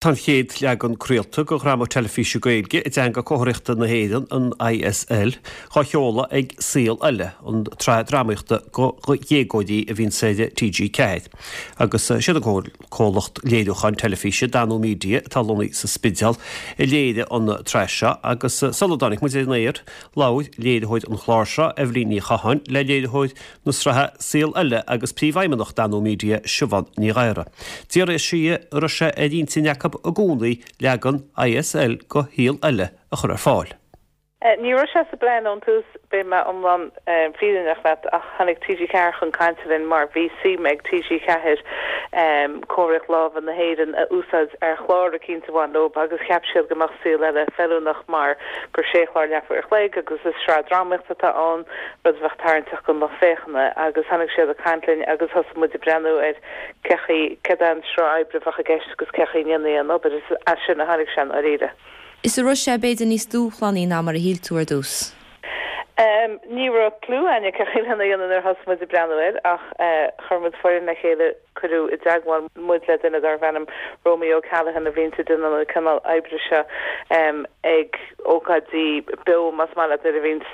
Tá an chéad leagan craolta de dhráma teilifíse Gaeilge i dTeanga Comharthaíochta na hÉireann, an ISL, dhá sheoladh ag Saol Ella, an tsraith drámaíochta do dhéagóirí a bhíonns ar TG4. Agus siad an comhlacht léiriúcháin teilifíse, Danú Media, atá lonnaithe sa Spidéal, a léirigh an tsraith seo. Agus sula dtáinig muid ar an aer, labhair léiritheoir an chláir seo, Eibhlín Ní Chatháin, le léiritheoir na sraithe Saol Ella agus Príomhfheidhmeannach Danú Media, Siobhán Ní Ghadhra. D'fhiafraigh sí di an raibh sé ar intinn acu i gcónaí leagan ISL de Shaol Ella a chur ar fáil. Ní raibh sé sa bplean ón tús, beidh mé iomlán fírinneach leat, ach tháinig TG4 chun cainte linn mar bhí suim ag TG4 comharthaíocht láimhe na hÉireann a úsáid ar chlár eicínt a bhain leo agus cheap siad go mbeadh Saol Ella feiliúnach mar gur sé chlár leathuair a chloig agus is sraith drámaíochta atá ann. rud a bheadh tarraingteach don lucht féachana, agus tháinig siad ag caint linn agus thosaigh muid ag breathnú ar cé chaoi, céard é an sruth oibre a bheadh i gceist agus cé chaoi a ndéanfaí an obair. Is as sin a tháinig sé i ndáiríre. Is an raibh sé b'fhéidir níos dúshlánaí ná mar a shíl tú ar dtús? Ní raibh cliú againne cé chaoi lena dhéanamh nuair a thosaigh muid ag breathnú air ach chuir muid foireann le chéile, Cuireadh i dteagmháil muid le duine darbh ainm Romy O'Callaghan a bhíonns ag déanamh an cineál oibre seo ag ócáidí beo más maith leat nuair a bhíonns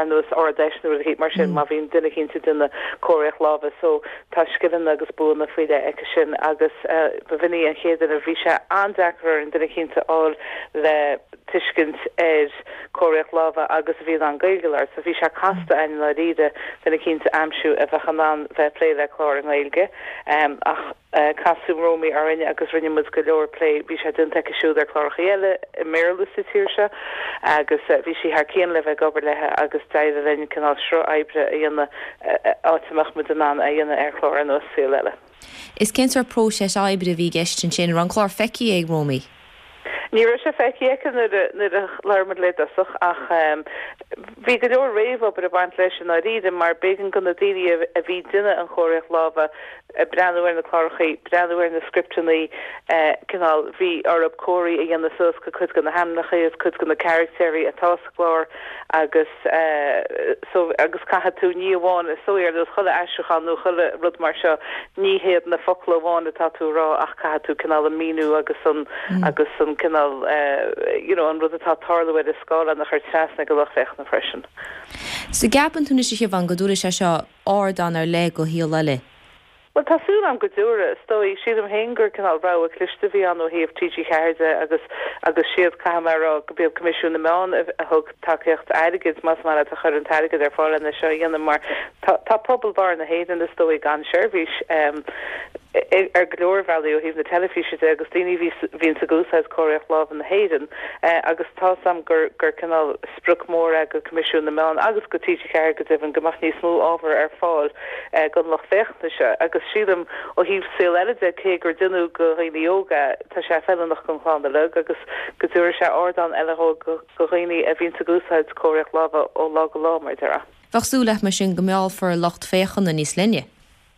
ar nós Ard-Fheis nó rud eicínt mar sin má bhíonn duine eicínt ag déanamh comharthaíocht láimhe so tá scileanna agus buanna faoi leith aici sin agus b'in í an chéad duine bhí sé an-deacair orainn duine eicínt a fháil le tuiscint ar chomharthaíocht láimhe agus a bhí in ann Gaeilge a labhairt. So bhí sé casta i ndáiríre duine eicínt a aimsiú a bheadh in ann bheith ag plé le clár i nGaeilge. Ach casadh Romy orainn agus rinne muid go leor plé. Bhí sé déanta aici siúd ar chlárachaí eile i mBéarla sa tír seo agus bhí sí thar cionn le bheith ag obair léi agus d'éirigh linn cineál sruth oibre a dhéanamh áit a mbeadh muid in ann é a dhéanamh ar chlár ar nós Saol Ella. Is cén sórt próiseas oibre a bhí i gceist ansin? An raibh an clár feicthe ag Romy? Ní raibh sé feicthe aici nuair a nuair a labhair muid léi i dtosach ach bhí go leor réamhobair ag baint leis i ndáiríre mar b'éigean do na daoine a bhí ag déanamh an chomharthaíocht láimhe breathnú ar na clárachaí, breathnú ar na scripteanna, cineál bhí orthu comharthaí a dhéanamh suas do cuid de na hainmneacha agus cuid de na caractéirí atá sa gclár agus so agus caithfidh tú ní amháin is dóigh ar nós chuile aistriúchán nó chuile rud mar seo ní hiad na focla amháin atá tú a rá ach caithfidh tú cineál an míniú agus an agus an cineál you know an rud atá ag tarlú ar an scáileán a chur trasna ag an lucht féachana freisin. So gceapann tú anois a Shiobhán go dtabharfaidh sé seo ardán ar leith do Shaol Ella? Bhuel, tá súil agam go dtabharfaidh. Is dóigh, sílim féin gur cineál rogha cliste a bhí ann ó thaobh TG4 de agus agus siad, caithfidh mé a rá, go b'iad Coimisiún na Meán a thug tacaíocht airgid, más maith leat, a chuir an t-airgead ar fáil lena seo a dhéanamh mar tá tá pobal barr na hÉireann is dóigh gan seirbhís ar go leor bealaí ó thaobh na teilifíse de agus daoine a bhí bhíonns ag úsáid comharthaíocht láimhe na hÉireann agus tá's agam gur gur cineál sprioc mór é do Coimisiún na Meán agus do TG4 go deimhin go mbeadh níos mó ábhar ar fáil don lucht féachana seo agus sílim ó thaobh Saol Ella de cé gur déanadh do dhaoine óga é tá sé feiliúnach don chlann uilig agus go dtabharfaidh sé ardán eile do dhaoine a bhíonns ag úsáid comharthaíocht láimhe ó lá go lá mar a déarfá. Bheadh súil leat mar sin go meallfar lucht féachana níos leithne.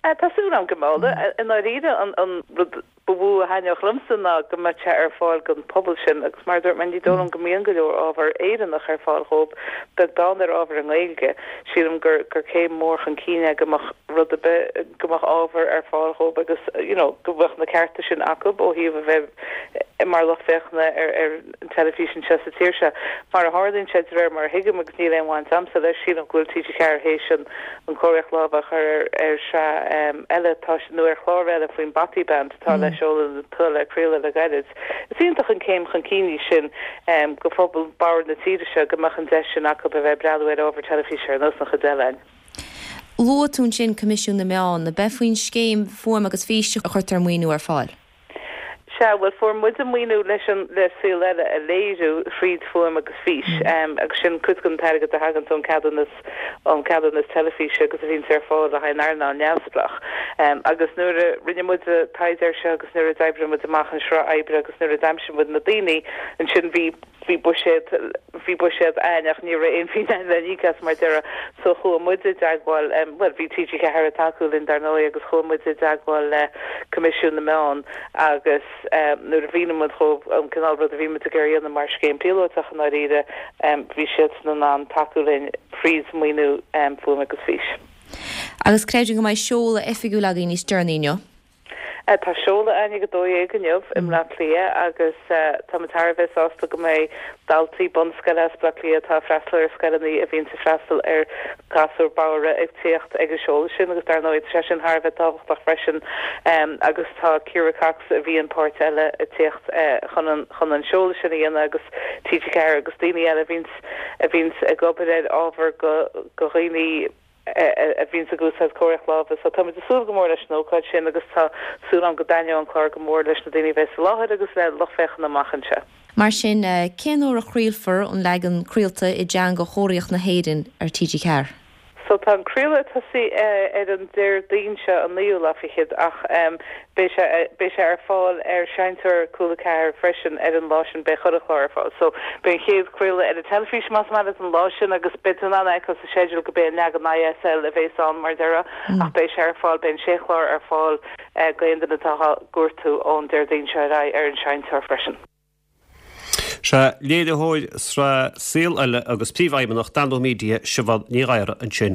Tá súil agam go meallfaidh. I ndáiríre an rud ba mhó a thaitneodh liomsa ná go mbeadh sé ar fáil don phobal sin agus mar a dúirt mé, ní dóigh liom go mbíonn go leor ábhar Éireannach ar fáil dhóibh, beag beann ar ábhar i nGaeilge. Sílim gur gur céim mhór chun cinn é go mbeadh rud ar bith, go mbeadh ábhar ar fáil dhóibh agus you know go mbeadh na cearta sin acu ó thaobh a bheith mar lucht féachana ar ar an teilifís anseo sa tír seo. Mar a tharlaíonn sé, de réir mar a thuigim, agus níl aon bhaint a'msa leis, sílim go bhfuil TG4 théis an an chomharthaíocht láimhe a chur ar ar shraith eile atá nó ar chlár eile faoin Bothy Band atá le seoladh atá le craoladh le gairid. Is iontach an céim chun cinn í sin do phobal bodhar na tíre seo go mbeadh an deis sin acu a bheith ag breathnú ar ábhar teilifíse ar nós an chuid eile againn. Luaigh tú ansin Coimisiún na Meán. Ab é faoin scéim Fuaim agus Fís a chuirtear an maoiniú ar fáil? Sea, bhuel, fuair muid an maoiniú leis an, le Saol Ella a léiriú thríd Fuaim agus Fís, agus sin cuid den t-airgead a thaganns ón ceadúnas, ón ceadúnas teilifíse agus a bhíonns ar fáil le haghaidh an earnáil neamhspleách. Agus nuair a rinne muid an taighde air seo agus nuair a d'oibrigh muid amach an sruth oibre agus nuair a d'aimsigh muid na daoine, ansin bhí, bhí buiséad, bhí buiséad a'ainn ach ní raibh aon phingin a'ainn le n-íoc as mar a déarfá. So chuaigh muid i dteagmháil, bhuel bhí TG4 ag tacú linn dar ndóigh agus chuaigh muid i dteagmháil le Coimisiún na Meán agus nuair a mhínigh muid dhóibh an cineál rud a bhí muid ag iarraidh a dhéanamh mar scéim píolótach i ndáiríre, bhí siadsan in ann tacú linn thríd maoiniú Fuaim agus Fís. Agus creidim go mbeidh seoladh oifigiúil againn níos deireanaí inniu. Tá seoladh againn ag 12 inniu i mBleá Cliath agus tá muid thar a bheith sásta go mbeidh daltaí bunscoile as Bleá Cliath atá ag freastal ar scoileanna a bhíonns ag freastal ar ghasúir bodhra ag tíocht ag an seoladh sin agus dar ndóigh tá sé sin thar a bheith tábhachtach freisin agus tá Ciara Cox a bhíonn páirt eile ag tíocht chun an chun an seoladh sin a dhéanamh agus TG4 agus daoine eile a bhíonns a bhíonns ag obair ar ábhar go go dhaoine a bhíonns ag úsáid comharthaíocht láimhe. So táimid ag súil go mór leis an ócáid sin agus tá súil agam go dtaitneoidh an clár go mór leis na daoine a bheas i láthair agus le lucht féachana amach anseo. Mar sin, cén uair a chraolfar an leagan craolta i dteanga chomharthaíocht na hÉireann ar TG4? So tá an craoladh ag tosaí ar an Déardaoin seo, an naoú lá fichead, ach beidh sé beidh sé ar fáil ar Seinnteoir Cúla 4 freisin ar an lá sin, beidh chuile chlár ar fáil. So beidh an chéad chraoladh ar an teilifís más maith leat an lá sin agus beidh tú in ann a fheiceáil sa sceideal go b'é an leagan ISL a bhéas ann mar a déarfá ach beidh sé ar fáil, beidh an sé chlár ar fáil d'aon duine atá á gcuartú ón Déardaoin seo ar aghaidh ar an Seinnteoir freisin. Sea, léiritheoir sraith Saol Ella agus Príomhfheidhmeannach Danú Media, Siobhán Ní Ghadhra ansin.